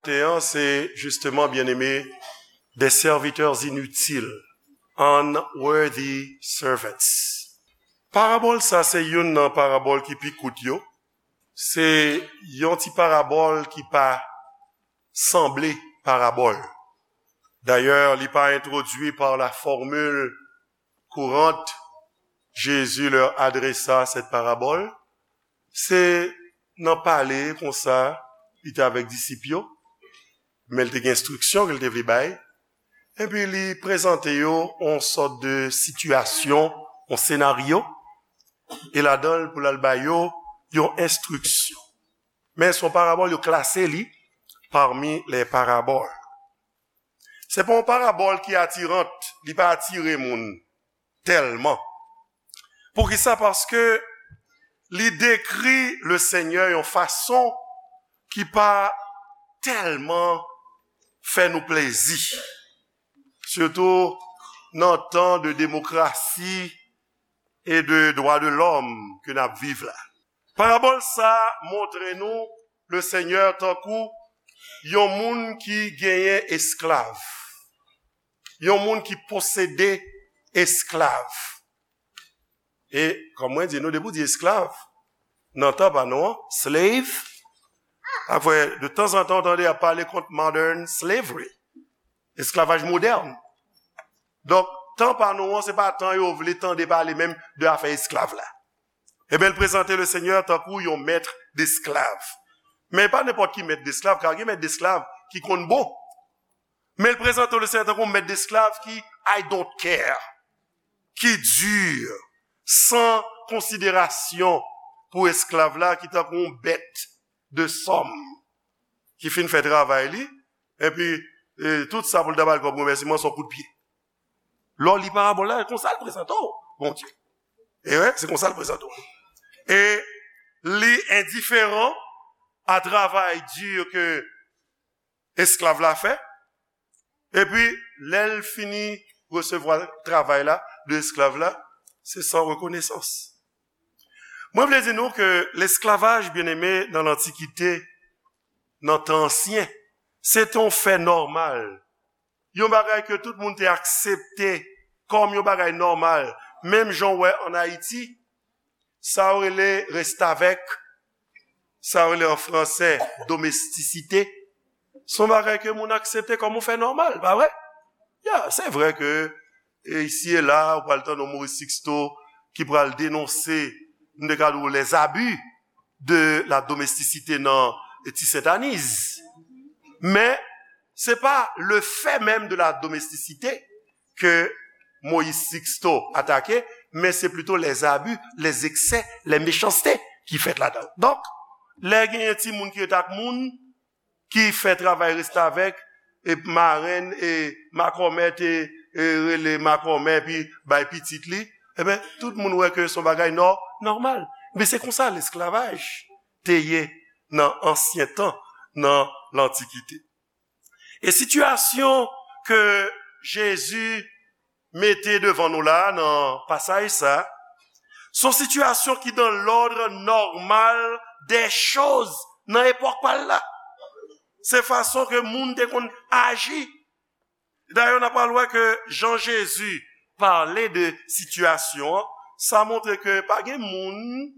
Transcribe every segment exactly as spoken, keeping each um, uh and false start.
Te an, se justement, bien-aimé, des serviteurs inutiles, unworthy servants. Parabòl sa, se youn nan parabòl ki pi kout yo. Se yon ti parabòl ki pa sanble parabòl. Dayè, li pa entwodui par la formule courante, Jésus leur adressa cette parabole. Se nan pale konsa, li te avèk disip yo, men li te gen enstriksyon ke l te vle bay. Epi li prezante yo yon sòt de sitiyasyon, yon senaryo, e ladan l pou l al ba yo yon enstriksyon. Men se yon parabòl, yo klase li parmi les paraboles. Se pa yon parabòl ki atirant, li pa atire moun tèlman. Poukisa? Paske li dekri le Senyè yon fason ki pa tèlman fè nou plezi. Sitou nan tan de demokrasi e de dwa de lòm ke n ap viv la. Parabòl sa montre nou le Senyè tankou yon moun ki genyen esklav, yon moun ki posede esklav. E, kòm mwen di nou, depi w di esklav, nan tan pa nou an, slave, apre, de tanzantan, w tande y ap pale kont modern slavery, esklavaj modèn. Donk, tan pa nou an, se pa tan yo vle tande pale menm de afè esklav la. Ebyen, l prezante le Senyè tankou yon mèt desklav. Men pa nenpòt ki mèt desklav, ka gen mèt desklav ki konn bon. Men l prezante le Senyè tankou yon mèt desklav ki I don't care, ki di, san konsiderasyon pou esklav la, ki tankou yon bèt de sòm, ki fin fè travay li, epi, e, tout sa pou l ta ba l kòm remèsiman, se yon kout pye. Lè w li parabòl la, se konsa l prezante w, Bondye. E wi, se konsa l prezante w. E li endiferan a travay di ke esklav la fè. Epi, lè l fini resevwa travay la de esklav la, se san rekonesans. Mwen vle di nou ke lesklavaj, byeneme, nan lantikite, nan tan ansyen, se te yon fè nòmal. Yon bagay ke tout moun te aksepte kòm yon bagay nòmal. Menm jan w wè ann Ayiti, sa yo rele restavèk, sa yo rele an fransè domestisite, se yon bagay ke moun aksepte kòm yon fè nòmal, pa vre? Ya, se vre ke, e, isi e la, ou pral tande yon Maurice Sixto ki pral denonse, m te ka di w, les abus de la domesticité nan Ti Sentaniz. Men, se pa le fait même de la domesticité ke Moïse Sixto atake, men se plito les abus, les excès, les méchancetés ki fèt ladan. Donk, lè genyen timoun ki ret ak moun, ki fè travay restavèk, e marenn, e makòmè te, e rele makòmè, epi bay pitit li, ebyen, tout moun wè ke se yon bagay nò-, nòmal. Men se konsa lesklavaj te ye nan ansyen tan, nan lantikite. E sitiyasyon ke Jezi mete devan nou la, nan pasaj sa, se yon sitiyasyon ki dans l'ordre normal des choses nan epòk pa l la. Se fason ke moun te konn aji. Dayè, n a pral wè ke jan Jezi pale de sitiyasyon an, sa montre ke pa gen moun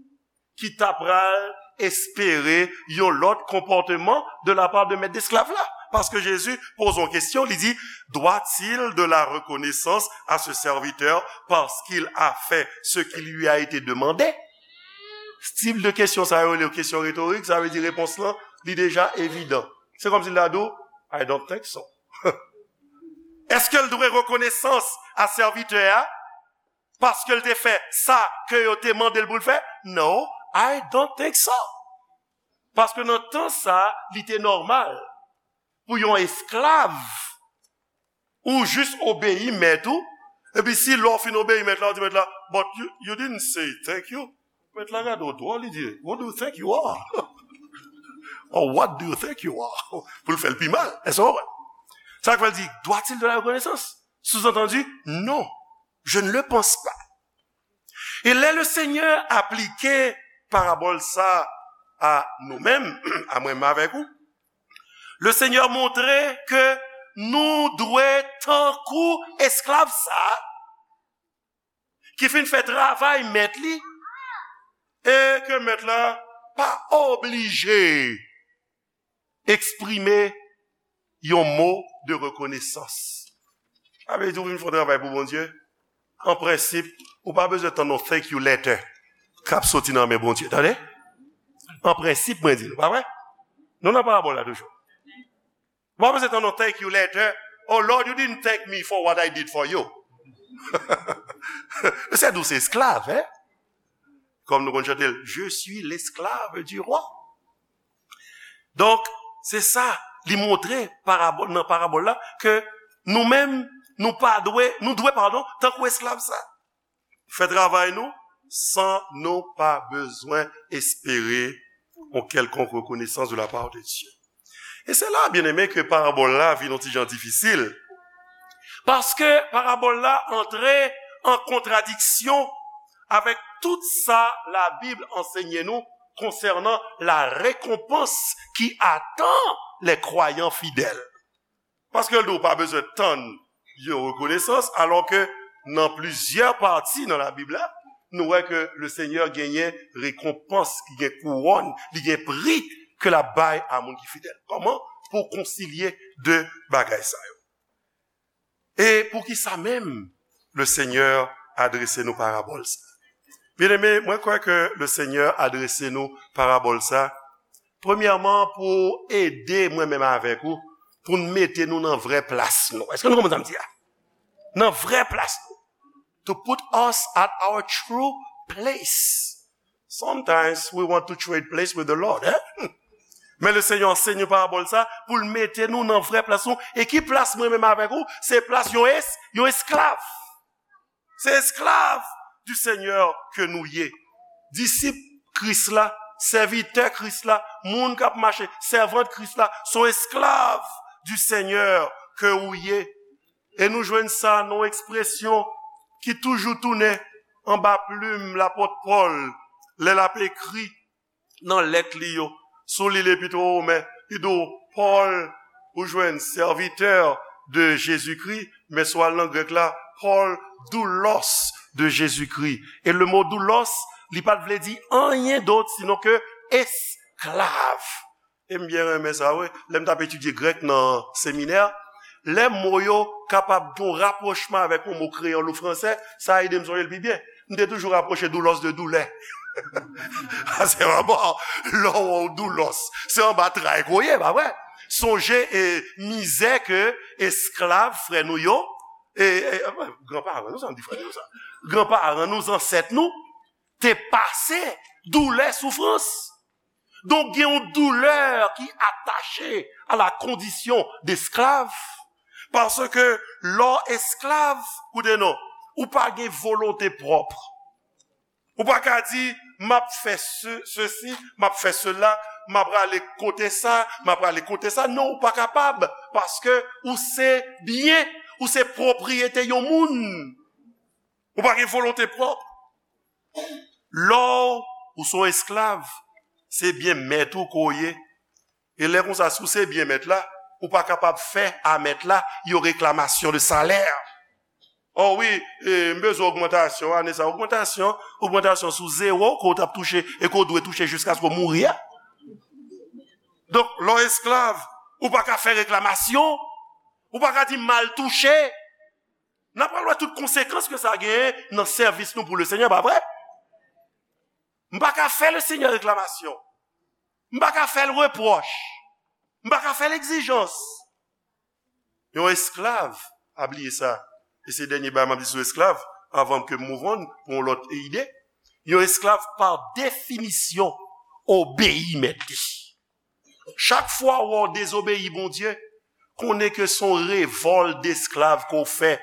ki ta pral espere yon lòt konpòteman de la part de mèt desklav la. Paske Jezi poze yon kesyon, li di, doit-il de la reconnaissance à ce serviteur parce qu'il a fait ce qui lui a été demandé? Tip de kesyon sa yo, rele kesyon retorik, sa vle di repons lan, li deja evidan. Se kòmsi l ta di w, I don't think so. Èske l dwe rekonesans a sèvitè a paske l te fè sa ke yo te mande l pou l fè? No, I don't think so. Paske nan tan sa, li te nòmal pou yon esklav ou jis obeyi mèt ou, epi si lè w fin obeyi mèt la, ou di mèt la, but you, you didn't say thank you. Mèt la gade w dwòl, li di, what do you think you are? Or what do you think you are? Pou l fè l pi mal. Èske w konprann? Sa k fè l di, doit-il de la reconnaissance? Sous-entendu, non, je ne le pense pas. E lè le Senyè aplike parabòl sa a nou menm, a mwen menm avèk ou, Le Senyè montre ke nou dwe tankou esklav sa a ki fin fè travay mèt li, e ke mèt la pa oblije eksprime yon mo de rekonesans. Sa vle di ou vin fè yon travay pou Bondye, an prensip, ou pa bezwen tann yon thank you letter k ap soti nan men Bondye, tande? An prensip, mwen di nou, pa vre? Nou nan parabòl la toujou. Ou pa bezwen tann yon thank you letter. Oh Lord, you didn't thank me for what I did for you. Se dous esklav, hein? Kòm nou konn chante l, je suis l'esclave du roi. Donk, se sa, li montre parabòl, nan parabòl la, ke nou menm, nou pa dwe, nou dwe, padon, tankou esklav sa. Fè travay nou, san nou pa bezwen espere yon kèlkonk rekonesans de la part de Dieu. E se la, byeneme, ke parabòl la vin yon ti jan difisil. Paske parabòl la antre an kontradiksyon avèk tout sa Labib ansenye nou konsènan la récompense qui attend les croyants fidèles. Paske l di w pa bezwen tann yon rekonesans, alò ke nan plizyè pati nan Labib la, nou wè ke le Senyè genyen rekonpans, li gen kouwòn, li gen pri ke l ap bay a moun ki fidèl. Kòman? Pou konsilye de bagay sa yo. E poukisa menm le Senyè adrese nou parabòl sa? Byeneme, mwen kwè ke le Senyè adrese nou parabòl sa, premyèman, pou ede mwen menm avèk ou, pou n mete nou nan vrè plas nou. Èske nou konprann sa m di a? Nan vrè plas nou. To put us at our true place. Sometimes we want to trade place with the Lord, eh? Men le Senyè ansenye parabòl sa pou l mete nou nan vrè plas nou. E ki plas mwen menm avèk ou? Se plas yon es-, yon esklav. Se esklav du Senyè ke nou ye. Disip Kris la, sèvitè Kris la, moun k ap mache, sèvant Kris la, se yon esklav du Senyè ke ou ye. E nou jwenn sa nan yon ekspresyon ki toujou tounen anba plim lapòt Pòl lè l ap ekri nan lèt li yo. Si w li Lepit o Women, li di w, Pòl, ou jwenn, serviteur de Jésus-Christ, men si w al nan grèk la, Pòl, doulos de Jésus-Christ. E le mo doulos, li pa t vle di anyen dòt sinon ke esklav. E m byen renmen sa, wi. Lè m t ap etidye grèk nan seminè, lè mo yo kapab gen yon rapwochman avèk yon mo kreyòl ou fransè, sa ede m sonje l pi byen. M te toujou rapwoche doulos de doulè. Paske anba, lè w wè w doulos, se anba tray ke w ye, pa vre? Sonje e mizè ke esklav frè nou yo, e, e, e, granparan nou, sa m di frè nou sa, granparan nou, zansèt nou, te pase, doulè, soufrans. Donk, gen yon doulè ki atache a la kondisyon desklav. Paske lè w esklav, koute non, ou pa gen volonte pwòp. Ou pa ka di, m ap fè se, sesi, m ap fè sela, m ap prale kote sa, m ap prale kote sa. Non, ou pa kapab, paske ou se byen, ou se pwopriyete yon moun. Ou pa gen volonte pwòp. Lè w, ou se yon esklav, se byen mèt ou ke w ye. E lè konsa, si w se byen mèt la, ou pa kapab fè a mèt la yon reklamasyon de salè. O wi, e, m bezwen ogmantasyon, ane sa, ogmantasyon, ogmantasyon sou zewo ke w t ap touche e ke w dwe touche jiskaske w mouri a. Donk, lè w esklav, ou pa ka fè reklamasyon, ou pa ka di m mal touche. N ap pral wè tout konsekans ke sa genyen nan sèvis nou pou le Senyè, pa vre? M pa ka fè le Senyè reklamasyon. M pa ka fè l repwòch. M pa ka fè l egzijans. Yon esklav, pa bliye sa, e se dènye bagay m ap di sou esklav, anvan ke m move on pou yon lòt ide. Yon esklav, pa definisyon, obeyi mèt li. Chak fwa w wè w dezobeyi Bondye, konnen ke se yon revòl desklav ke w fè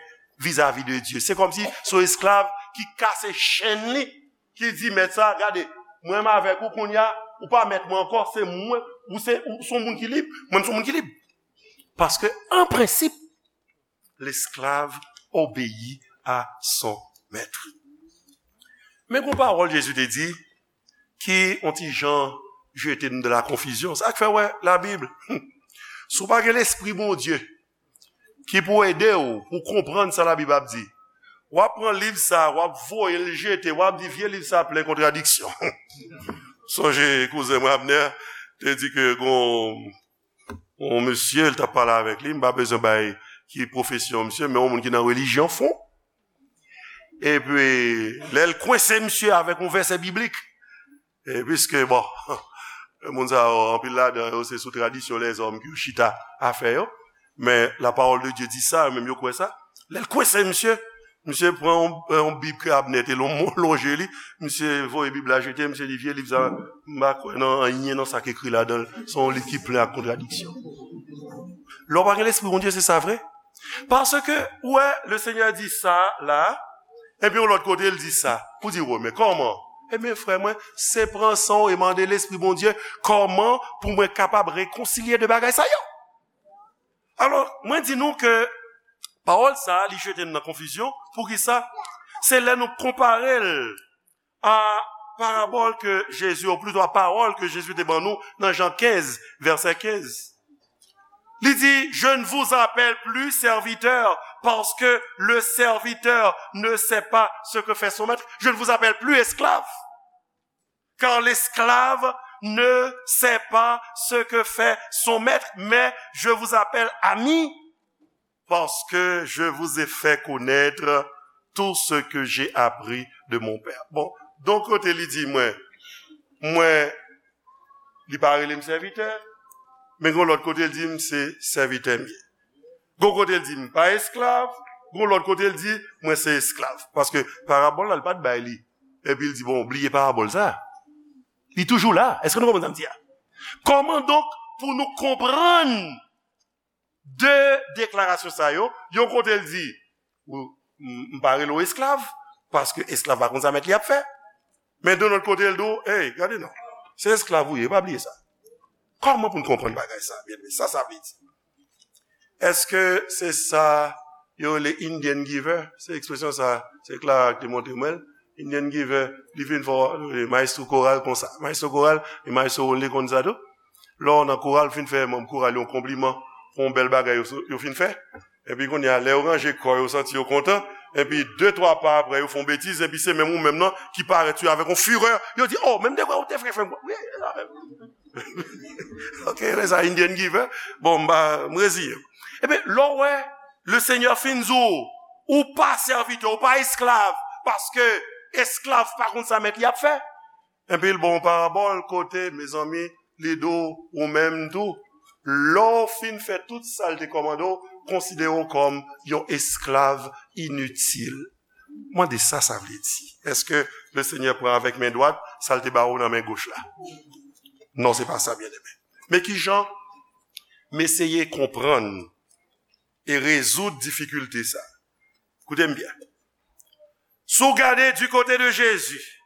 vizavi de Dye. Se kòmsi se yon esklav ki kase chenn li, ki di mèt sa, gade, mwen menm avèk ou kounye a, ou pa mèt mwen ankò, se mwen, ou se, ou se yon moun ki lib, mwen m se yon moun ki lib. Paske, an prensip, l'esclave obéit à son maître. Men gon pawòl Jezi te di ki on ti jan jete n dan la konfizyon. Sa k fè w wè Labib, hmm, Si w pa gen Lespri Bondye ki pou ede w pou konprann sa Labib ap di, w ap pran liv sa, w ap voye l jete, w ap di, "Vye liv sa plen kontradiksyon." Sonje kouzen mwen Abner te di ke gon yon mesye, l t ap pale avèk li, m pa bezwen bay ki pwofesyon misye, men yon moun ki nan relijyon fon. Epi, lè l kwense misye avèk yon vèsè biblik, e piske, bon, moun sa yo, anpil ladan yo, se sou tradisyon lèzòm ke yo chita a fè yo. Men, la parole de Dieu dit ça, yo menm yo kwè sa. Lè l kwense misye, misye pran yon, yon bib ke Abner te lon-, lonje li, misye voye bib la jete, misye di, "Vye liv sa, m pa kwè nan anyen nan sa k ekri ladan l. Se yon liv ki plen ak kontradiksyon." Lè w pa gen Lespri Bondye, se sa vre. Paske, ou wè, le Seigneur di sa la, epi yon lòt kote, l di sa. Ou di, "Wè, men kòman?" Ebyen, frè mwen, se pran san w e mande Lespri Bondye, "Kòman pou mwen kapab rekonsilye de bagay sa yo?" Alò, mwen di nou ke pawòl sa a, li jete n nan konfizyon. Poukisa? Se lè nou konpare l a parabòl ke Jezi, ou plito a pawòl ke Jezi te ban nou nan Jan kenz, vèsè kenz. Li di, "Je ne vous appelle plus serviteur, parce que le serviteur ne sait pas ce que fait son maître. Je ne vous appelle plus esclave, car l'esclave ne sait pas ce que fait son maître, mais je vous appelle ami, parce que je vous ai fait connaître tout ce que j'ai appris de mon Père." Bon, yon kote li di mwen, mwen, li pa rele m sèvitè, men yon lòt kote li di m se sèvitè m ye. Yon kote li di m pa esklav, yon lòt kote li di mwen se esklav. Paske parabòl la, li pa t bay li. Epi li di, "Bon, bliye parabòl sa." Li toujou la. Èske nou konprann sa m di a? Kòman donk pou nou konprann de deklarasyon sa yo? Yon kote l di, "Ou, m, m pa rele w esklav, paske esklav pa konn sa mèt li ap fè." Men de lòt kote l di w, "Ey, gade non, se esklav ou ye, pa bliye sa." Kòman pou n konprann bagay sa, byeneme? Sa, sa vle di. Èske se sa yo rele Indian giver? Se ekspresyon sa, se Clara ki te montre mwen l. Indian giver, li vin fè w, eh, maestro koral konsa. Maestro koral, e maestro Ronley konn sa tou. Lè w nan koral, fin fè manm koral yo yon konpliman pou yon bèl bagay yo, yo fin fè. Epi kounye a, lè yo ranje kò yo, santi yo kontan. Epi de, twa pa apre, yo fè yon betiz. Epi se menm ou menm nan ki parèt sou yo avèk yon firè. Yo di, "Oh, menm de vre ou te fè fè m." Wi, sa menm. Ok, lè sa Indian giver. Bon, m pa, m reziye m. Ebyen, lè w wè, le Seigneur fin di w, ou pa sèvitè, ou pa esklav, paske esklav pa konn sa mèt li ap fè. Epi l ba w yon parabòl kote, mezanmi, li di w, ou menm tou, lè w fin fè tout sa l te kòmande w, konsidere w kòm yon esklav initil. Mande sa sa vle di. Èske le Seigneur pran avèk men dwat sa l te ba w nan men goch la? Non, se pa sa, byeneme. Men ki jan m eseye konprann e rezoud difikilte sa? Koute m byen. Si w gade du côté de Jésus,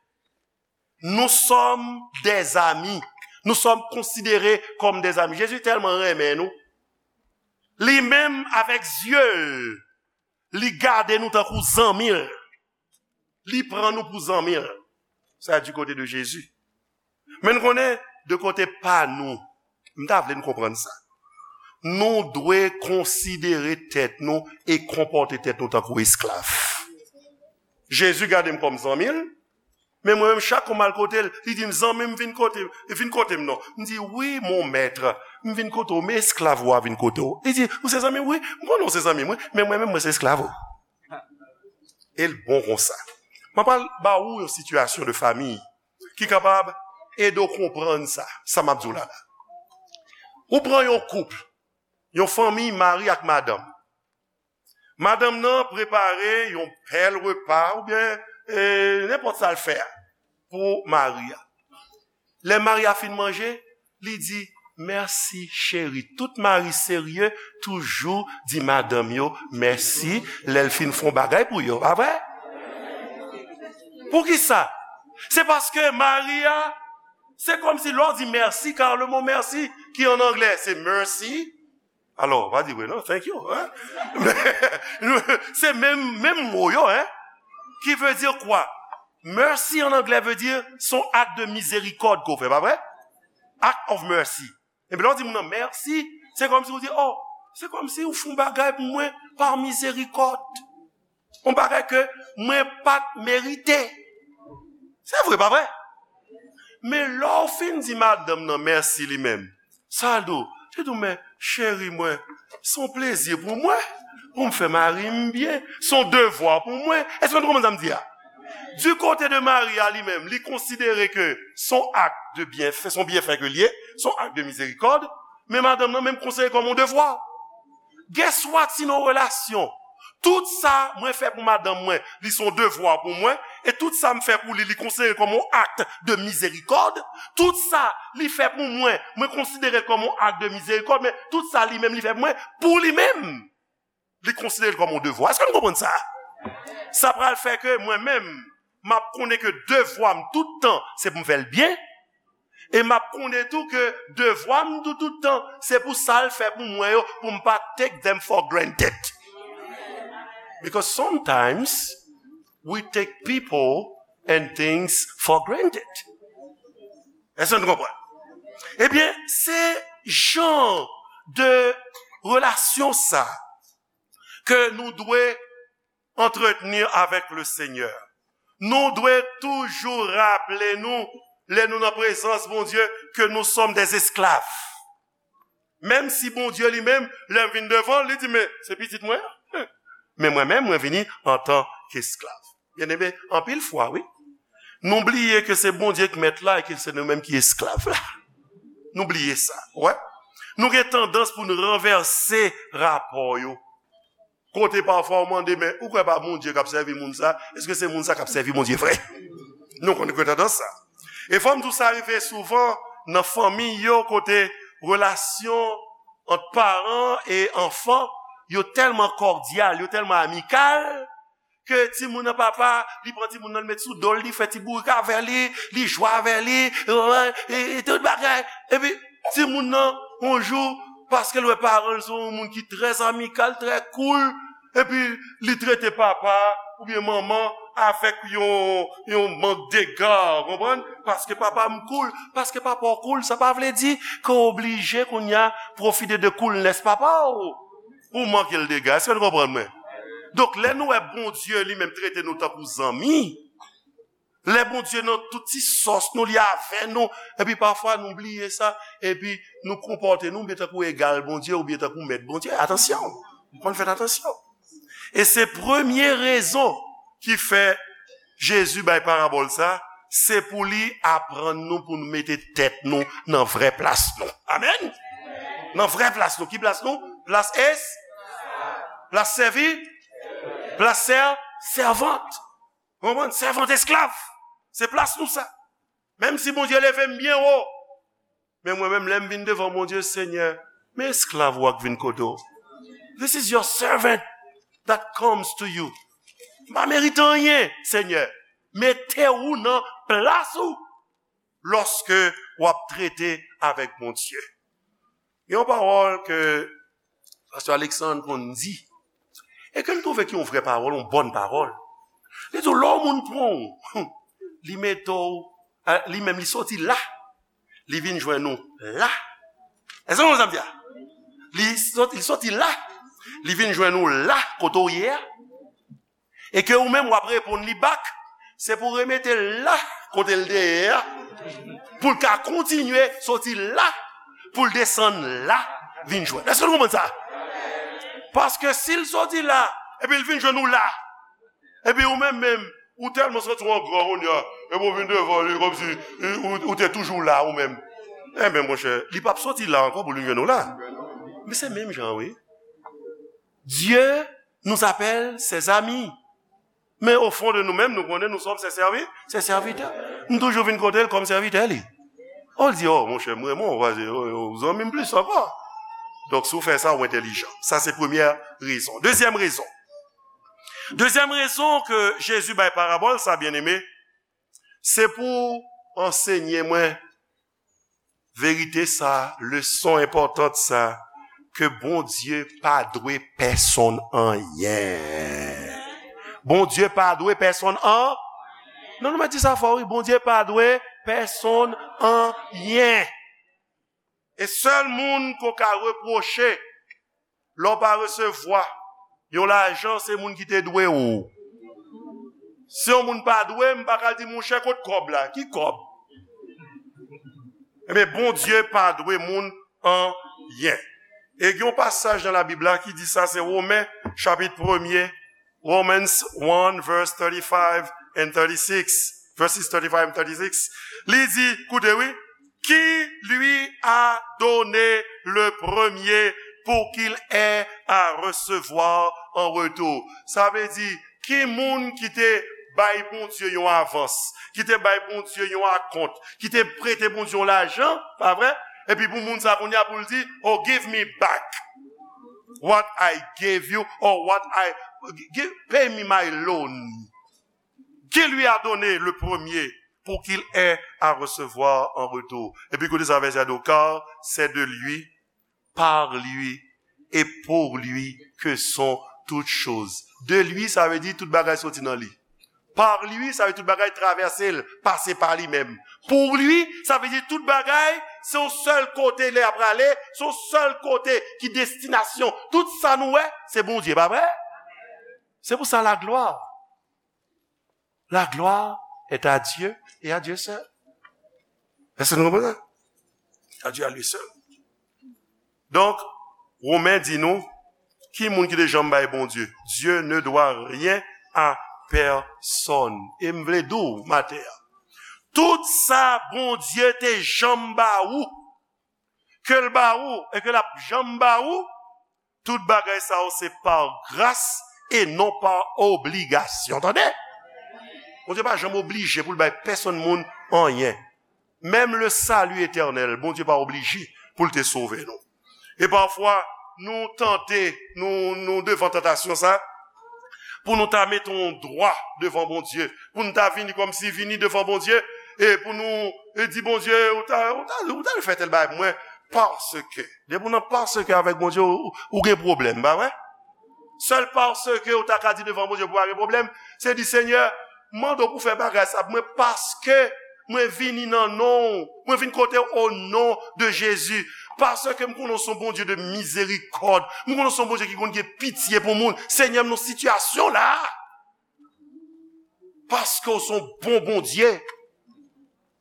nous sommes des amis. Nous sommes considérés comme des amis. Jezi tèlman renmen nou. Li menm avèk zye l, li gade nou tankou zanmi l. Li pran nou pou zanmi l. Sa du côté de Jésus. Men n konnen, de kote pa nou, m ta vle n konprann sa. Nou dwe konsidere tèt nou e konpòte tèt nou tankou esklav. Jezi gade m kòm zanmi l, men mwen menm, chak kou m al kote l, li di m, "Zanmi m, vin kote, vin kote m non." M di, "Wi, mon maître, m vin kote w, men esklav ou a vin kote w." Li di, "Ou se zanmi m?" "Wi, m konnen w se zanmi m, wi, men mwen menm, mwen se esklav ou." E l bon konsa. Mwen pral ba ou yon sitiyasyon de famiy ki kapab ede w konprann sa, sa m ap di w la la. Ou pran yon koup, yon fanmi, mari ak madanm. Madanm nan prepare yon bèl repa oubyen, eh, nenpòt sa l fè a pou mari a. Lè mari a fin manje, li di, "Mèsi, cheri." Tout mari serye toujou di madanm yo mèsi lè l fin fè yon bagay pou yo, pa vre? Poukisa? Se paske mari a, se kòmsi lè w di mèsi, car le mot merci, ki an anglè, se mercy. Alò, pa di vre non, thank you, hein? Se menm, menm mo yo, hein? Qui veut dire quoi? Mercy en anglais veut dire son acte de miséricorde ke w fè, pa vre? Act of mercy. Epi lè w di moun nan mèsi, Se kòmsi ou di, oh, se kòmsi ou fè yon bagay pou mwen pa mizerikòd. Yon bagay ke mwen pa t merite. Se vre, pa vre? Men lè w fin di madanm nan mèsi li menm, sa l di w? Li di w, men cheri mwen, se yon plezi pou mwen, pou m fè mari m byen, se yon devwa pou mwen. Èske nou konprann sa m di a? Du côté de mari a li menm, li konsidere ke se yon ak de byenfè, se yon byenfè ke l ye, se yon ak de mizerikòd, men madanm nan menm konsidere kòm yon devwa. Guess what, si nan relasyon, tout sa mwen fè pou madanm mwen, li se yon devwa pou mwen, e tout sa m fè pou li, li konsidere kòm yon ak de mizerikòd, tout sa li fè pou mwen, mwen konsidere l kòm yon ak de mizerikòd, men tout sa li menm li fè pou mwen, pou li menm, li konsidere l kòm yon devwa. Èske nou konprann sa? Sa pral fè ke mwen menm, m ap konnen ke devwa m tout tan, se pou m fè l byen, e m ap konnen tou ke devwa m tou, tout tan, se pou sa l fè pou mwen yo, pou m pa take them for granted. Because sometimes we take people and things for granted. Èske nou konprann? Ebyen, se jan de relasyon sa ke nou dwe entretenir avec le Seigneur. Nou dwe toujou raple nou, lè nou nan prezans Bondye, ke nous sommes des esclaves. Menm si Bondye li menm, lè m vin devan l, li di, men se pitit mwen an. Men mwen menm, mwen vini antan ke esklav. Byeneme, anpil fwa, wi, nou bliye ke se Bondye ki mèt la e ke se nou menm ki esklav la. Nou bliye sa, wè. Nou gen tandans pou nou ranvèse rapò yo. Kote pafwa ou mande, men ou kwè pa Bondye k ap sèvi moun sa? Èske se moun sa k ap sèvi Bondye vre? Nou konn gen tandans sa. E fò m di w sa rive souvan nan fanmi yo, kote relasyon ant paran e anfan yo tèlman kòdyal, yo tèlman amikal, ke timoun nan papa, li pran timoun nan, li met sou do l, li fè ti bourik avè li, li jwe avè li, e, e, e tout bagay. Epi timoun nan, yon jou, paske l wè paran l se yon moun ki trè amikal, trè cool, epi li trete papa oubyen manman avèk yon, yon mank dega, konprann? Paske papa m cool, paske papa w cool, sa pa vle di ke w oblije kounye a pwofite de coolness papa w pou w manke l dega. Èske nou konprann mwen? Donk, lè nou wè Bondye li menm trete nou tankou zanmi, lè Bondye nan tout ti sòs nou, li avè nou, epi pafwa nou bliye sa, epi nou konpòte nou byen tankou egal Bondye oubyen tankou mèt Bondye. Atansyon! Nou konn fèt atansyon. E se premye rezon ki fè Jezi bay parabòl sa, se pou li aprann nou pou nou mete tèt nou nan vrè plas nou. Amèn? Nan vrè plas nou. Ki plas nou? Plas es-, plas sèvi, plas sè-, sèvant. Konprann? Sèvant esklav. Se plas nou sa. Menm si Bondye leve m byen wo, men mwen menm, lè m vin devan Bondye, Senyè, men esklav ou a k vin kote w. This is your servant that comes to you. M pa merite anyen, Senyè. Mete ou nan plas ou lòske w ap trete avèk Bondye. Gen yon pawòl ke Pastè Alexandre konn di, e ke m twouve ki yon vrè pawòl, yon bòn pawòl. Li di w, lè yon moun pran w, li mete w, a, li menm li soti la, li vin jwenn ou la. Èske w konn sa m di a? Li soti, li soti la, li vin jwenn ou la, kote w ye a. E ke ou menm w ap reponn li back, se pou remete l la, kote l te ye a, pou l ka kontinye soti la, pou l desann la, vin jwenn. Èske nou konprann sa? Paske si l soti la, epi l vin jwenn ou la, epi ou menm menm, ou tèlman santi w an gran kounye a, epi w vin devan li kòmsi ou, ou te toujou la ou menm. Enben, monchè, li p ap soti la ankò pou l vin jwenn ou la. Men se menm jan, wi. Dieu nous appelle ses amis. Men o fon de nou menm, nou konnen nou sòm se sèvi, se sèvitè. M toujou vin kote l kòm sèvitè li. O, l di, o, monchè, m renmen w, paske, o, o, zanmi m plis ankò. Donk, si w fè sa, w entèlijan. Sa se premyè rezon. Dezyèm rezon. Dezyèm rezon ke Jezi bay parabòl sa, byeneme, se pou ansenye mwen verite sa, leson enpòtan sa, ke Bondye pa dwe pèsonn anyen. Bondye pa dwe pèsonn an-, non, non, mwen di sa fò, wi. Bondye pa dwe pèsonn anyen. E sèl moun ke w ka repwoche lè w pa resevwa yon lajan, se moun ki te dwe w. Si yon moun pa dwe m, m pa ka di, "Monchè, kot kòb la?" Ki kòb? Ebyen, Bondye pa dwe moun anyen. E gen yon pasaj nan Labib la ki di sa, se Women, chapit premye, Romans one, verse thirty-five and thirty-six, verses thirty-five and thirty-six. Li di, koute wi, qui lui a donné le premier pour qu'il ait à recevoir en retour. Sa vle di, ki moun ki te bay Bondye yon avans, ki te bay Bondye yon akont, ki te prete Bondye yon lajan, pa vre? Epi pou moun sa kounye a pou l di, "Oh, give me back what I gave you, or what I, give, pay me my loan." Qui lui a donné le premier pour qu'il ait à recevoir en retour. Epi koute sa vèsè a di, car c'est de lui, par lui et pour lui que sont toutes choses. De lui, sa vle di tout bagay soti nan li. Par lui, sa vle di tout bagay travèse l, pase pa li menm. Pour lui, sa vle di tout bagay, se yon sèl kote lè y ap prale, se yon sèl kote ki destinasyon. Tout sa nou wè, se Bondye, pa vre? Se pou sa la gloire. La gloire est à Dieu et à Dieu seul. Èske nou konprann sa? À Dieu à lui seul. Donk, Women di nou, ki moun ki te janm bay Bondye? Dieu ne doit rien à personne. E m vle di w, maten an, tout sa Bondye te janm ba ou, ke l ba ou, e ke l ap janm ba ou, tout bagay sa yo se pa gras e non pa obligasyon. Tande? Bondye pa janm oblije pou l bay pèsonn moun anyen. Menm le salut éternel, Bondye pa oblije pou l te sove nou. E pafwa, nou tante, nou, nou devan tantasyon sa, pou nou ta mete yon dwa devan Bondye, pou nou ta vini kòmsi vini devan Bondye, e pou nou, e di, "Bondye, ou ta, ou ta, ou ta fè tèl bagay pou mwen, paske." Depi w nan paske avèk Bondye, ou, ou gen pwoblèm, pa vre? Sèl paske ou ta ka di devan Bondye pou pa gen pwoblèm, se di, "Senyè, m mande w pou fè bagay sa pou mwen, paske mwen vini nan non w, mwen vin kote w o non de Jezi, paske m konnen w se yon Bondye de mizerikòd, m konnen w se yon Bondye ki konn gen pitye pou moun. Senyè, m nan sitiyasyon la, paske w se yon bon Bondye,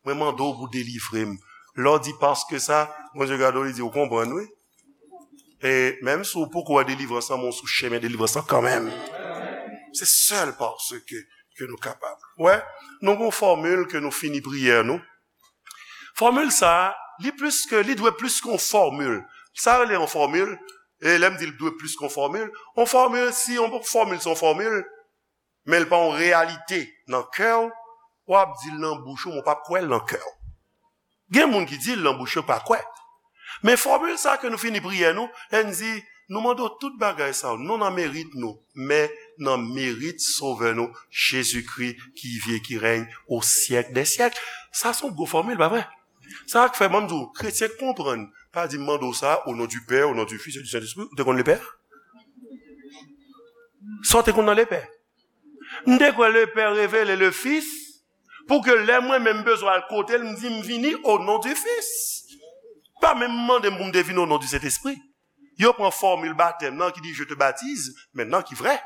mwen mande w pou delivre m." Lè w di paske sa, Bondye gade w, li di, "Ou konprann, wi." E menm si w poko wè delivrans lan, men w sou chemen delivrans lan kanmenm. Se sèl paske ke nou kapab. Wè, nou gon fòmil ke nou fini priyè nou. Fòmil sa a, li plis ke, li dwe plis ke yon fòmil. Sa rele yon fòmil, e lè m di l dwe plis ke yon fòmil, yon fòmil, si yon fòmil se yon fòmil, men l pa yon reyalite nan kè w, w ap di l nan bouch ou, men w p ap kwè l nan kè w. Gen moun ki di l nan bouch yo, pa kwè. Men fòmil sa ke nou fini priyè nou, lè n di, "Nou mande w tout bagay sa yo, non nan merit nou, men nan merit Sovè nou, Jezikri, ki viv e ki règne au siècle des siècles." Sa se yon gwo fòmil, pa vre? Sa k fè, ban m di w, kretyen k konprann, pa di, "M mande w sa, au nom du Père, au nom du Fils et du Saint-Esprit." Ou te konn Lepè? Sa w te konn nan Lepè? M te kwè Lepè revele Lefis, pou ke lè mwen menm bezwen al kote l, m di, "M vini o non di Fis." Pa menm mande m pou m te vini o non di Sentespri. Yo pran fòmil batèm nan ki di, "Je te baptise maintenant," ki vrè,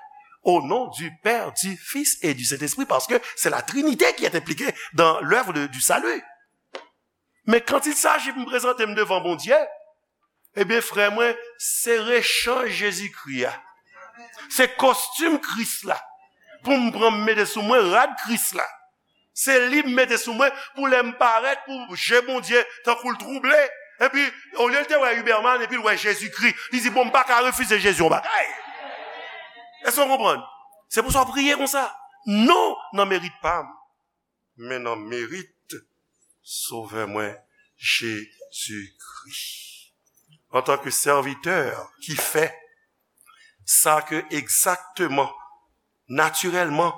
"au nom du Père, du Fils et du Saint-Esprit," paske se la Trinité qui est impliquée dans l'œuvre de, du salut. Men quand il s'agit pou m prezante m devan Bondye, ebyen, frè mwen, se rechanj Jezikri a. Se kostim Kris la. Pou m pran m mete sou mwen rad Kris la. Se li m mete sou mwen pou lè m parèt, pou je Bondye tankou l twouble. Epi, olye l te wè Huberman, epi l wè Jezikri. Li di, "Bon, m pa ka refize Jezi yon bagay." Èske w konprann? Se pou sa w priye konsa. Non nan merit pa m, men nan merit Sovè mwen, Jezikri. Antanke sèvitè ki fè sa ke egzakteman, natirèlman,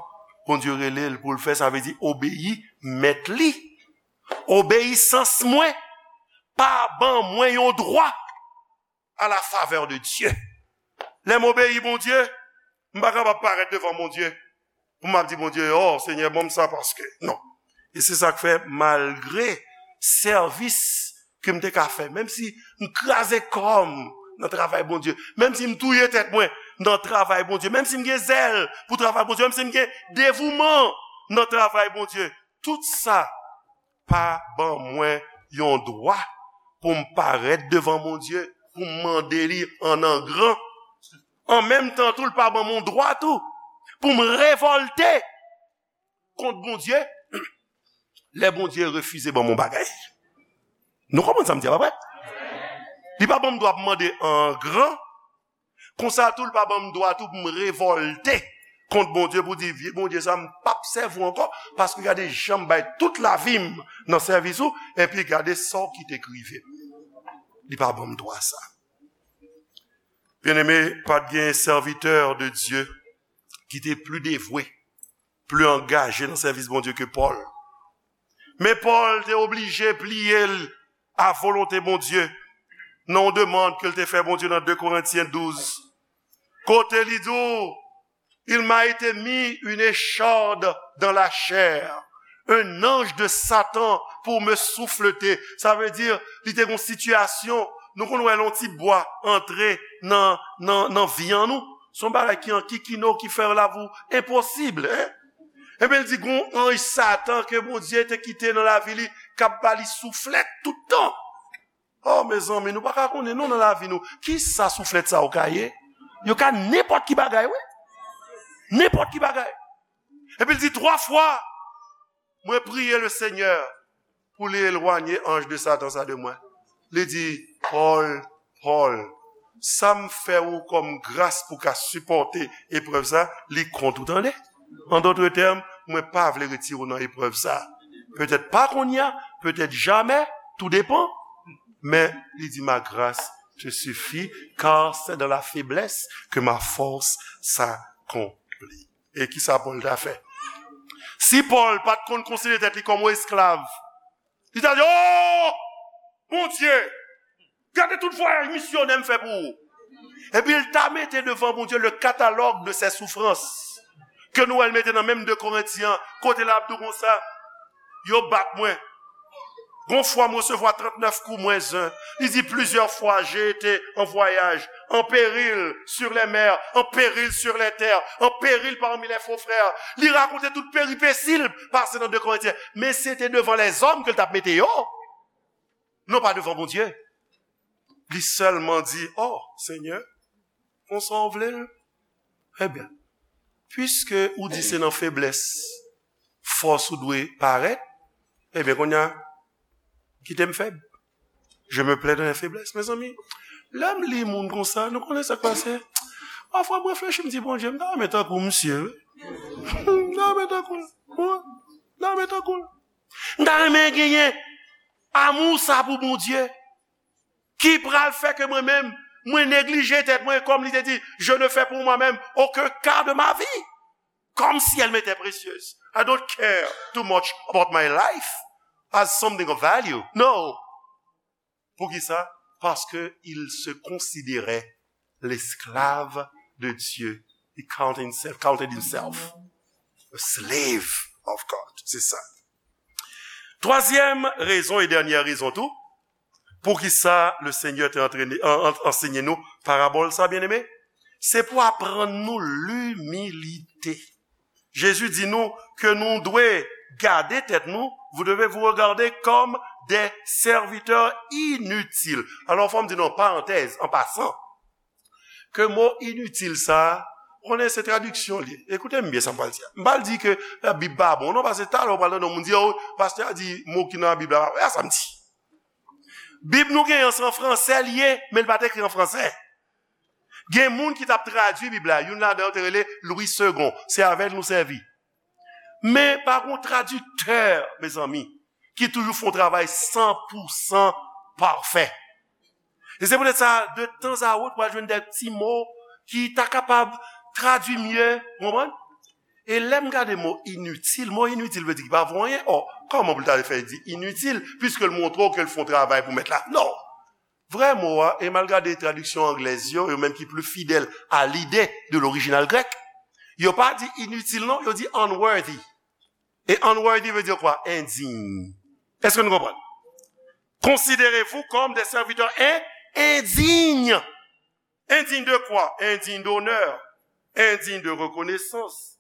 Bondye rele l pou l fè, sa vle di obeyi mèt li. Obeyisans mwen pa ban mwen yon dwa à la faveur de Dieu. Lè m obeyi Bondye, m pa kapab parèt devan Bondye pou m ap di Bondye, "Oh, Senyè, ban m sa paske." Non. E se sa k fè, malgre sèvis ke m te ka fè, menm si m kraze kò m nan travay Bondye, menm si m touye tèt mwen nan travay Bondye, menm si m gen zèl pou travay Bondye, menm si m gen devouman nan travay Bondye, tout sa pa ban mwen yon dwa pou m parèt devan Bondye, pou m mande li an angran. An menm tan tou, l pa ban mwen yon dwa tou pou m revòlte kont Bondye lè Bondye refize ban mwen yon bagay. Nou konprann sa m di a, pa vre? Li pa ban m dwa pou m mande an angran. Konsa tou, li pa ban m dwa tou pou m revòlte kont Bondye, pou di, "Vye Bondye sa, m p ap sèvi w ankò, paske gade jan m bay tout lavi m nan sèvis ou, epi gade sa w kite k rive m." Li pa ban m dwa sa. Byeneme, pa t gen sèvitè de Dye ki te pli devwe, pli angaje nan sèvis Bondye ke Pòl. Men Pòl te oblije pliye l a volonte Bondye nan yon demann ke l te fè Bondye nan de Korentyen douz, kote li di w, "Il m'a été mis une écharde dans la chair, un ange de Satan pour me souffleter." Sa vle di, li te gen yon sitiyasyon, nou konn wè lè yon ti bwa antre nan, nan, nan vyann ou, se yon bagay ki ankikine w, ki fè lavi w enposib, en. Ebyen, l di, gon anj Satan ke Bondye te kite nan lavi li, k ap ba li souflèt tout tan. Oh, mezanmi, nou pa ka konnen non nan lavi nou. Kisa souflèt sa yo ka ye? Yo ka nenpòt ki bagay, wi. Nenpòt ki bagay. Epi l di, "Twa fwa, mwen priye le Senyè pou li elwanye anj de Satan sa de mwen." Li di, "Pòl, Pòl, sa m fè ou kòm gras pou ka sipòte eprèv sa, li kont ou, tande. An dòt tèm, mwen pa vle retire w nan eprèv sa. Petèt pa kounye a, petèt jamè, tou depan." Men li di, "Ma grâce te suffit, car c'est dans la faiblesse que ma force s'accomplit." E kisa Pòl ta fè? Si Pòl pa t konn konsidere tèt li kòm yon esklav, li ta di, "Oh, Bondye, gade tout vwayaj misyonè m fè pou ou." Epi l ta mete devan Bondye le catalogue de ses souffrances, ke nou wè l mete nan menm de Korentyen, kote l ap di w konsa, "Yo bat mwen. Gon fwa m resevwa trannèf kou mwens en." Li di, "Plusieurs fois j'ai été en voyage, en péril sur les mers, en péril sur les terres, en péril parmi les faux frères." Li rakonte tout peripesi l pase nan de Korentyen. Men se te devan lèzòm ke l t ap mete yo, non pa devan Bondye. Li sèlman di, "Oh, Senyè, konsa w vle l? Ebyen, piske ou di se nan feblès fòs ou dwe parèt, ebyen, kounye a, kite m fèb. Je me plais dans les faiblesses." Mezanmi, lè m li moun konsa, nou konnen sa k pase. Pafwa, m reflechi, m di, "Bondye, m ta renmen tankou misye, wi." M ta renmen tankou l. Wi, m ta renmen tankou l. M ta renmen genyen amou sa pou Bondye, ki pral fè ke mwen menm, mwen neglije tèt mwen, kòm li te di, "Je ne fais pour moi-même aucun quart de ma vie comme si elle m'était précieuse. I don't care too much about my life as something of value." No. Poukisa? Paske il se considérait l'esclave de Dieu. He counted himself, counted himself a slave of God. Se sa. Twazyèm rezon e dènyè rezon tou, poukisa le Senyè te antrene, an, an, ansenye nou parabòl sa, byeneme, se pou aprann nou limilite. Jezi di nou ke nou dwe gade tèt nou, vous devez vous regarder comme des serviteurs inutiles. Alò, fò m di nou, parantèz, an pasan, ke mo initil sa a, konnen se tradiksyon li. Ekoute m byen sa m pral di a. M pral di ke, eh, Bib pa bon, non, paske talè w pral tande yon moun di, "Oh, pastè a di mo ki nan Bib la pa vre." A sa m di. Bib nou genyen an, se an fransè li ye, men li pa t ekri an fransè. Gen moun ki t ap tradui Bib la, youn ladan yo te rele Louis Segond. Se avè l nou sèvi. Men pa gen yon tradiktè, mezanmi, ki toujou fè yon travay san pou san pafè. E se poutèt sa, de tanzawòt, w a jwenn de ti mo ki ta kapab tradui mye, w konprann? E lè m gade mo initil, mo initil vle di ki pa vo anyen. Ò, kòman pou l ta fè di initil, piske l montre w ke l fè yon travay pou mèt la? Non! Vrè mo a, e m al gade tradiksyon anglèz yo, yo menm ki pli fidèl a lide de lorijinal grèk, yo pa di initil non, yo di unworthy. E unworthy vle di kwa? Endiy. Èske nou konprann? Considérez-vous comme des serviteurs in- indignes. Indigne de quoi? Indigne d'honneur, indigne de reconnaissance,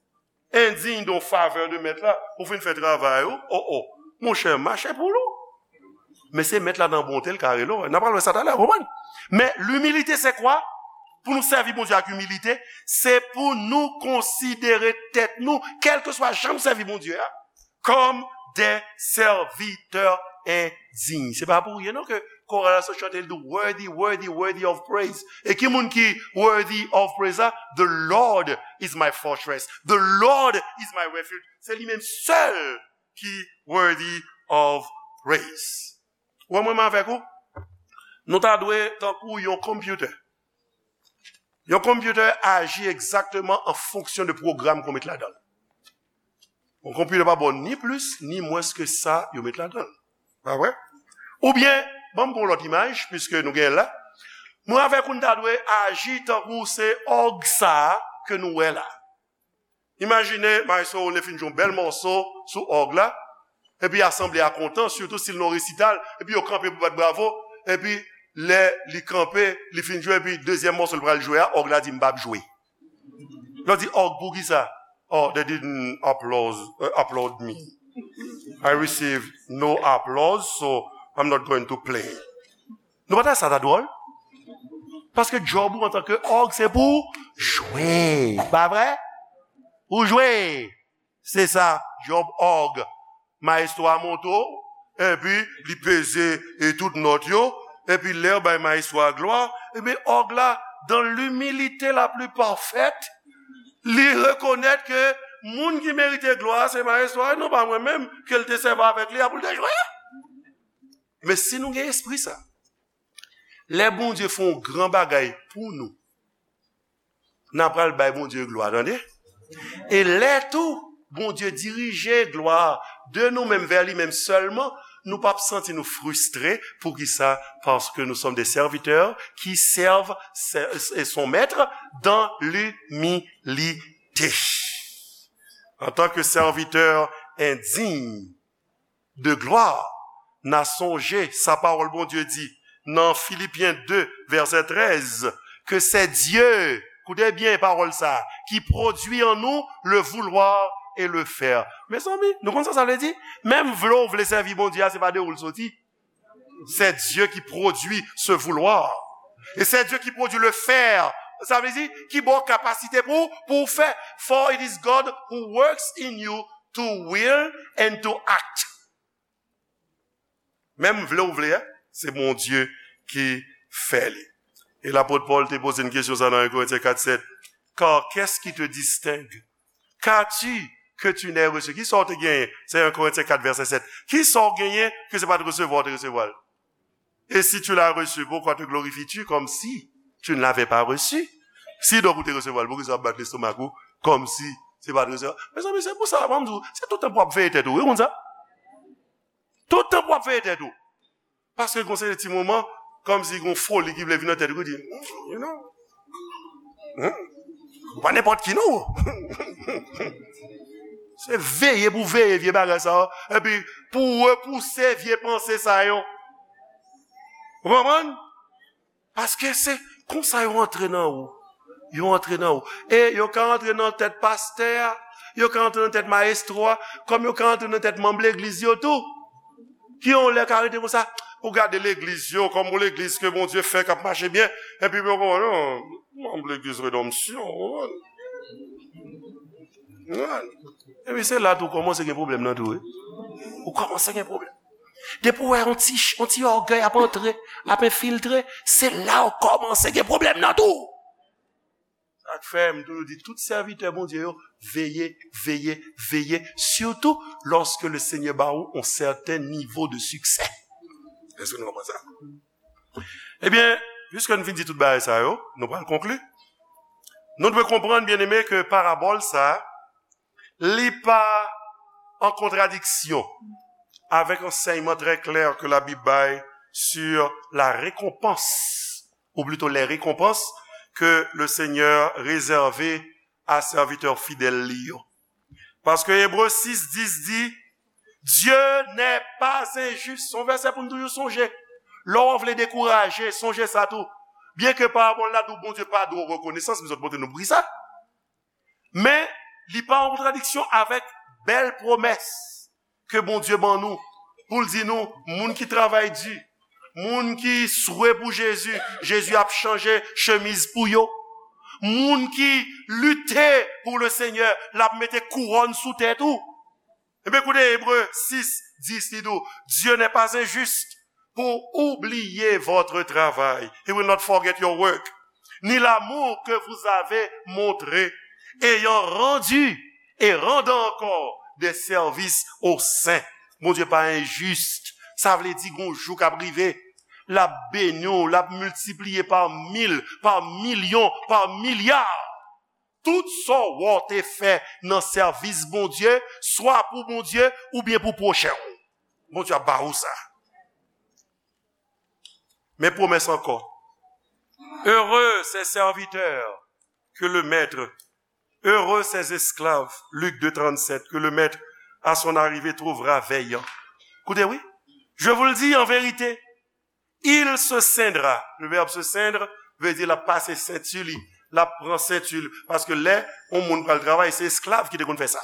indigne de favè de mèt la. Ou fin fè travay ou, oh, oh. Monchè, mache pou ou. Men se mèt la nan bonte l ka rele w. N a pral wè sa talè, konprann? Men limilite se kwa? Pou nou sèvi Bondye ak imilite, se pou nou konsidere tèt nou, kèlkeswa jan nou sèvi Bondye a, comme des serviteurs indignes. Se pa pou ryen non ke koral la sot chante, li di, "Worthy, worthy, worthy of praise." E ki moun ki worthy of praise la? "The Lord is my fortress. The Lord is my refuge." Se li menm sèl ki worthy of praise. Ou wè mwen menm avèk ou? Nou ta dwe tankou yon computer. Yon computer aji egzakteman an fonksyon de pwogram ke w met ladan l. Yon computer pa ba w ni plis, ni mwens ke sa yo met ladan l. Pa vre? Oubyen, ban m pran yon lòt imaj, piske nou genyen l la. Mwen avèk ou, n ta dwe aji tankou se òg sa a ke nou wè la. Imajine, maestro Role fin jwe yon bèl mòso sou òg la, epi asanble a kontan, sitou si l nan resital, epi yo kanpe pou bat bravo, epi lè li kanpe, li fin jwe, epi dezyèm mòso l pral jwe a, òg la di, "M p ap jwe." Lè w di, "Òg, poukisa?" "Oh, they didn't applause, uh, applaud me. I received no applause, so I'm not going to play." Nou pa ta sa ta dwòl? Paske djòb ou antanke òg, se pou jwe. Pa vre? Ou jwe. Se sa, djòb òg. Maestro a monte w, epi li peze e tout nòt yo, epi lè yo bay maestro a glwa, epi òg la, dans l'humilité la plus parfaite, li rekonèt ke moun ki merite glwa a se maestro a, e non pa mwen menm, ke l te sèvi avèk li a pou l te jwe a. Men si nou gen espri sa, lè Bondye fè yon gran bagay pou nou, n a pral bay Bondye glwa, tande? E lè tou, Bondye dirije glwa a de nou menm vè li menm sèlman, nou p ap santi nou fristre. Poukisa? Parce que nous sommes des serviteurs qui servent se- son maître dans l'humilité. En tant que serviteur indigne de gloire, n a sonje sa pawòl Bondye di nan Filipyen de, vèsè trèz, ke se Dye, koute byen pawòl sa, ki pwodui an nou le vouloir et le faire. Mezanmi, nou konn sa sa vle di? Menm vle w vle sèvi Bondye a, se pa de ou l soti. C'est Dieu qui produit ce vouloir. Et c'est Dieu qui produit le faire. Sa vle di, ki ba w kapasite pou, pou w fè. For it is God who works in you to will and to act. Menm vle ou vle, se Bondye ki fè li. E lapot Pòl te poze n kesyon sa nan en Korentyen kat sèt. Car qu'est-ce qui te distingue? Qu'as-tu que tu n'aies reçu? Kisa w te genyen? Se en Korentyen kat vèsè sèt. Kisa w genyen ke se pa t resevwa w te resevwa l? Et si tu l'as reçu, pourquoi te glorifies-tu comme si tu ne l'avais pas reçu? Si donk ou te resevwa l, poukisa w ap bat lestomak ou kòmsi se pa t resevwa? Mezanmi, se pou sa, mwen m di w, se tout tan pou w ap veye tèt ou, wi, konn sa? Tout tan pou w ap veye tèt ou. Paske gon seri de ti moman, kòmsi gon foli ki vle vin nan tèt ou, ki di, you know, hmm? Ou pa nenpòt ki, non. Se veye pou veye vye bagay sa yo, epi pou repouse vye panse sa yo. Ou konprann? Paske se konsa yo antre nan ou. Yo antre nan ou. E yo ka antre nan tèt pastè a, yo ka antre nan tèt mayestwo a, kòm yo ka antre nan tèt manm legliz yo tou. Ki yon lè ka rete konsa, ou gade legliz yo, kòm yon legliz ke Bondye fè k ap mache byen, epi yo konn, non, manm legliz Redanmsyon, ou konprann? Epi se la tou w kòmanse gen pwoblèm nan tou, wi. Ou kòmanse gen pwoblèm. Depi w wè yon ti, yon ti ògèy ap antre, ap enfiltre, se la w kòmanse gen pwoblèm nan tou. Sa k fè m toujou di tout sèvitè Bondye yo, veye, veye, veye, surtout lorsque le Seigneur ba ou yon sèten nivo de siksè. Èske nou konprann sa? Ebyen, piske n fin di tout bagay sa yo, nou pral konkli. Nou dwe konprann, byeneme, ke parabòl sa a, li pa an kontradiksyon avèk ansèyman trè klè ke Labib bay sur la récompense, ou plito les récompenses que le Seigneur réserve a sèvitè fidèl li yo. Paske Ebre sis dis di, Dieu n'est pas injuste. Se yon vèsè pou n toujou sonje. Lè w vle dekouraje, sonje sa tou. Byenke parabòl la di w Bondye pa dwe w rekonesans, m sot montre nou pri sa. Men, li pa an kontradiksyon avèk bèl pwomès ke Bondye ban nou, pou l di nou, moun ki travay di, moun ki swe pou Jezi, Jezi ap chanje chemiz pou yo. Moun ki lite pou le Senyè, l ap mete kouwòn sou tèt ou. Ebyen, koute Ebre sis dis, li di w, Dieu n'est pas injuste pour oublier votre travail. He will not forget your work. Ni l'amour que vous avez montré, ayant rendu et rendant encore des services aux saints. Bondye pa enjis. Sa vle di, gon jou k ap rive, l ap beni w, l ap miltipliye pa mil, pa milyon, pa milya. Tout sa w te fè nan sèvis Bondye, swa pou Bondye oubyen pou pwochen w, Bondye ap ba ou sa. Men pwomès ankò. Heureux ces serviteurs que le maître, heureux ces esclaves, Luc deux trente-sept, que le maître à son arrivée trouvera veillant. Koute, wi. Je vous le dis en vérité, il se ceindra. Le verbe se ceindre veut dire l ap pase senti li, l ap pran senti li. Paske lè yon moun pral travay, se esklav ki te konn fè sa.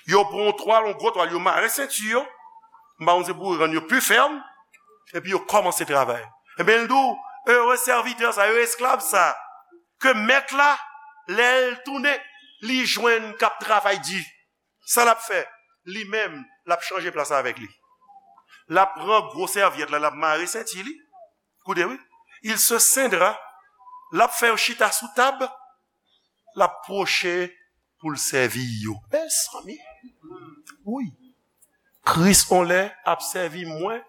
Yo pran yon twal, yon gwo twal, yo mare senti yo. M pa konn se pou rann yo pi fèm. Epi yo kòmanse travay. Ebyen, l di w, ere sèvitè sa, ere esklav sa, ke mèt la, lè l tounen, li jwenn k ap travay di. Sa l ap fè? Li menm, l ap chanje plas avèk li. L ap pran gwo sèvyèt la, l ap mare senti li. Koute, wi. Il se ceindra. L ap fè yo chita sou tab. L ap pwoche pou l sèvi yo. Mezanmi. Wi. Kris, on lè, ap sèvi mwen,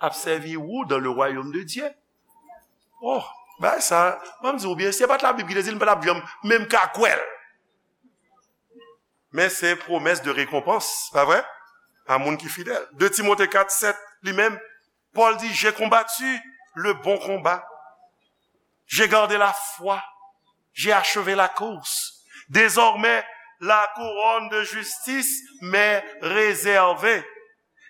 ap sèvi ou dans le royaume de Dieu. Oh, bagay sa, ban m di w byen, si se pa t Labib ki te di l, m pa t ap janm menm ka kwè l. Men se pwomès de rekonpans, pa vre? A moun ki fidèl. De Timote kat sèt, li menm, Pòl di, j'ai combattu le bon combat. J'ai gardé la foi. J'ai achevé la course. Désormais, la couronne de justice m'est réservée.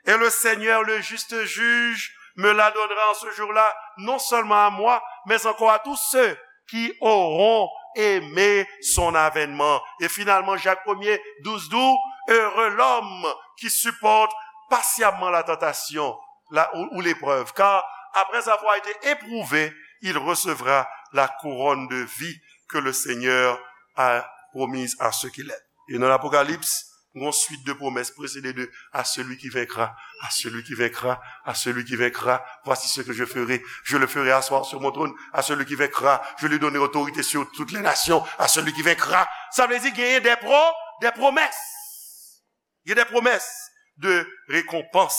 Et le Seigneur, le juste juge, me la donnera en ce jour-là, non seulement à moi, mais encore à tous ceux qui auront aimé son avènement. Et finalement, Jacques premier, douze, douze, heureux l'homme qui supporte patiemment la tentation, la, ou, ou l'épreuve, car après avoir été éprouvé, il recevra la couronne de vie que le Seigneur a promise à ceux qui l'aiment. Et dans l'Apocalypse, gon swit de pwomès presede de à celui qui vaincra, à celui qui vaincra, à celui qui vaincra, voici ce que je ferai, je le ferai asseoir sur mon trône, à celui qui vaincra, je lui donnerai autorité sur toutes les nations, à celui qui vaincra. Sa vle di genyen de pro, de pwomès. Gen de pwomès de rekonpans.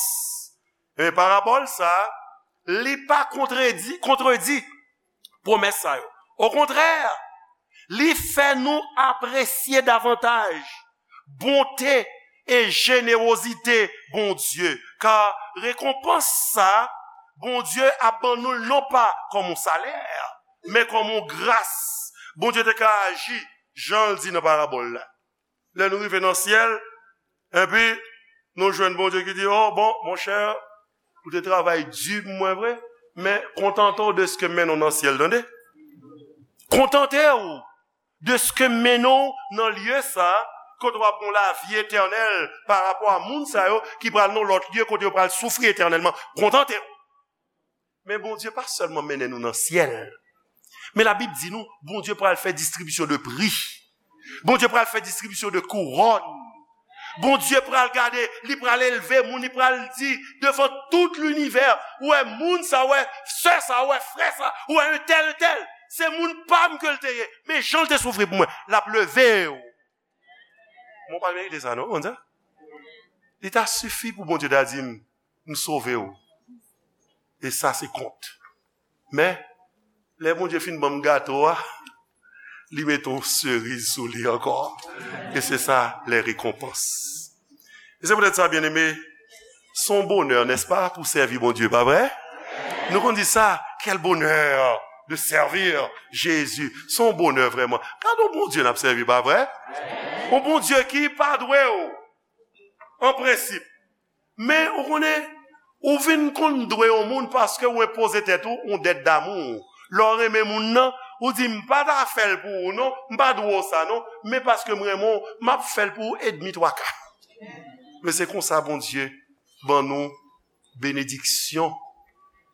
E parabòl sa, li pa kontredi, kontredi pwomès sa yo. Okontrè, li fè nou apresye davantaj bonte e jenewozite Bondye. Ka rekonpans sa, Bondye ap ban nou l non pa kòm yon salè, men kòm yon gras. Bondye te ka aji jan l di nan parabòl la. Lè nou rive nan syèl, epi nou jwenn Bondye ki di, oh, bon, monchè, ou te travay di pou mwen vre, men kontante w de ske m mennen w nan syèl, tande. Kontante w de ske m mennen w nan lye sa, kote w ap gen lavi etènèl pa rapò a moun sa yo ki pral nan lòt lye kote yo pral soufri etènèlman. Kontante w. Men Bondye pa sèlman mennen nou nan syèl. Men Labib di nou, Bondye pral fè distribisyon de pri. Bondye pral fè distribisyon de kouwòn. Bondye pral gade, li pral elve moun, li pral di devan tout linivè, ou wè moun sa, ou wè sè sa, ou wè frè sa, ou wè entèl, entèl. Se moun pa m ke l te ye, men jan l te soufri pou mwen, l ap leve w. Mwen pa merite sa, non, konn sa? Li ta sifi pou Bondye ta di m, m sove w. E sa se kont. Men, lè Bondye fin ban m gato a, li mete yon seriz sou li ankò. E se sa, les récompenses. E se poutèt sa, byeneme, se yon bonè, n'est-ce pas, pou sèvi Bondye, pa vre? Nou konn di sa, quel bonheur de servir Jésus. Se yon bonè vrèman. Gade yon Bondye n ap sèvi, pa vre? Yon Bondye ki pa dwe w, an prensip, Men, ou konnen, ou vin konn dwe yon moun paske ou enpoze tèt ou yon dèt damou. Lè w renmen moun nan, ou di, "M pa ta fè l pou ou non, m pa dwe w sa non, men paske m renmen w, m ap fè l pou ou edmi twa ka." Men se konsa Bondye ban nou benediksyon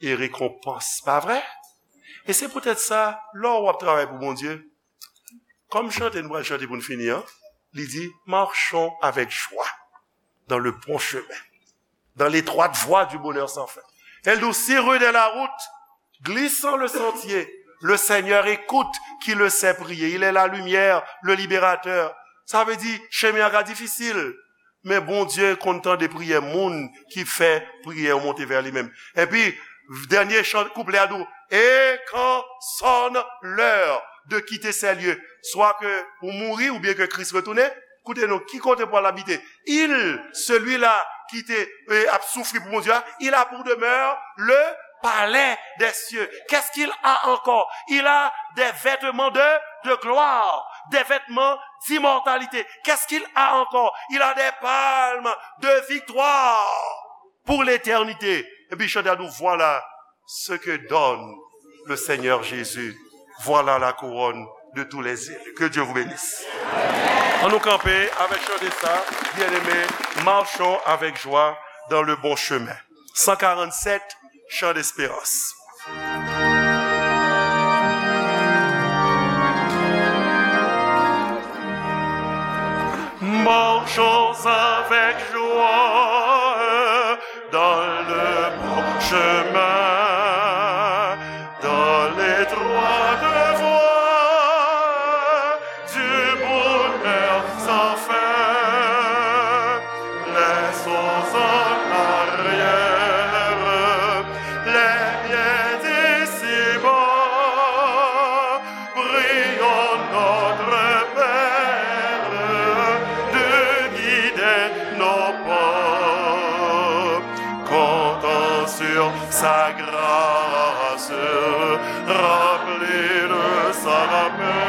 e rekonpans, pa vre? E se poutèt sa, lè w ap travay pou Bondye, kòm chante nou pral chante pou n fini an, li di, "Marchons avec joie dans le bon chemin, dans l'étroite voie du bonheur sans fin." El di, "Si rude est la route, glissant le sentier, le Seigneur écoute qui le sait prier. Il est la lumière, le libérateur." Sa vle di, chemen an ka difisil, men Bondye konn tande priyè moun ki fè priyè yo monte vè li menm. Epi, dènye chan, kouplè a di, "Et quand sonne l'heure de quitter ces lieux," swa ke ou mouri oubyen ke Kris retounen, koute non, ki kote pou al abite? Il, celui-là qui te, euh, ap soufri pou Bondye a, il a pour demeure le palais des cieux. Qu'est-ce qu'il a encore? Il a des vêtements de, de gloire, des vêtements d'immortalité. Qu'est-ce qu'il a encore? Il a des palmes de victoire pour l'éternité. Epi chante a di, "Voilà ce que donne le Seigneur Jésus. Voilà la couronne de tous les élus." Que Dieu vous bénisse. An nou kanpe avèk chante sa, bien-aimés, marchons avec joie dans le bon chemin. Cent quarante-sept, chant d'espérance. Marchons avec joie dans le bon chemin, dans l'étroite voie du bonheur sans fin. Laissons en arrière les biens d'ici-bas. Prions notre Père de guider nos pas. Comptons sur sa grâce, remplis de sa paix.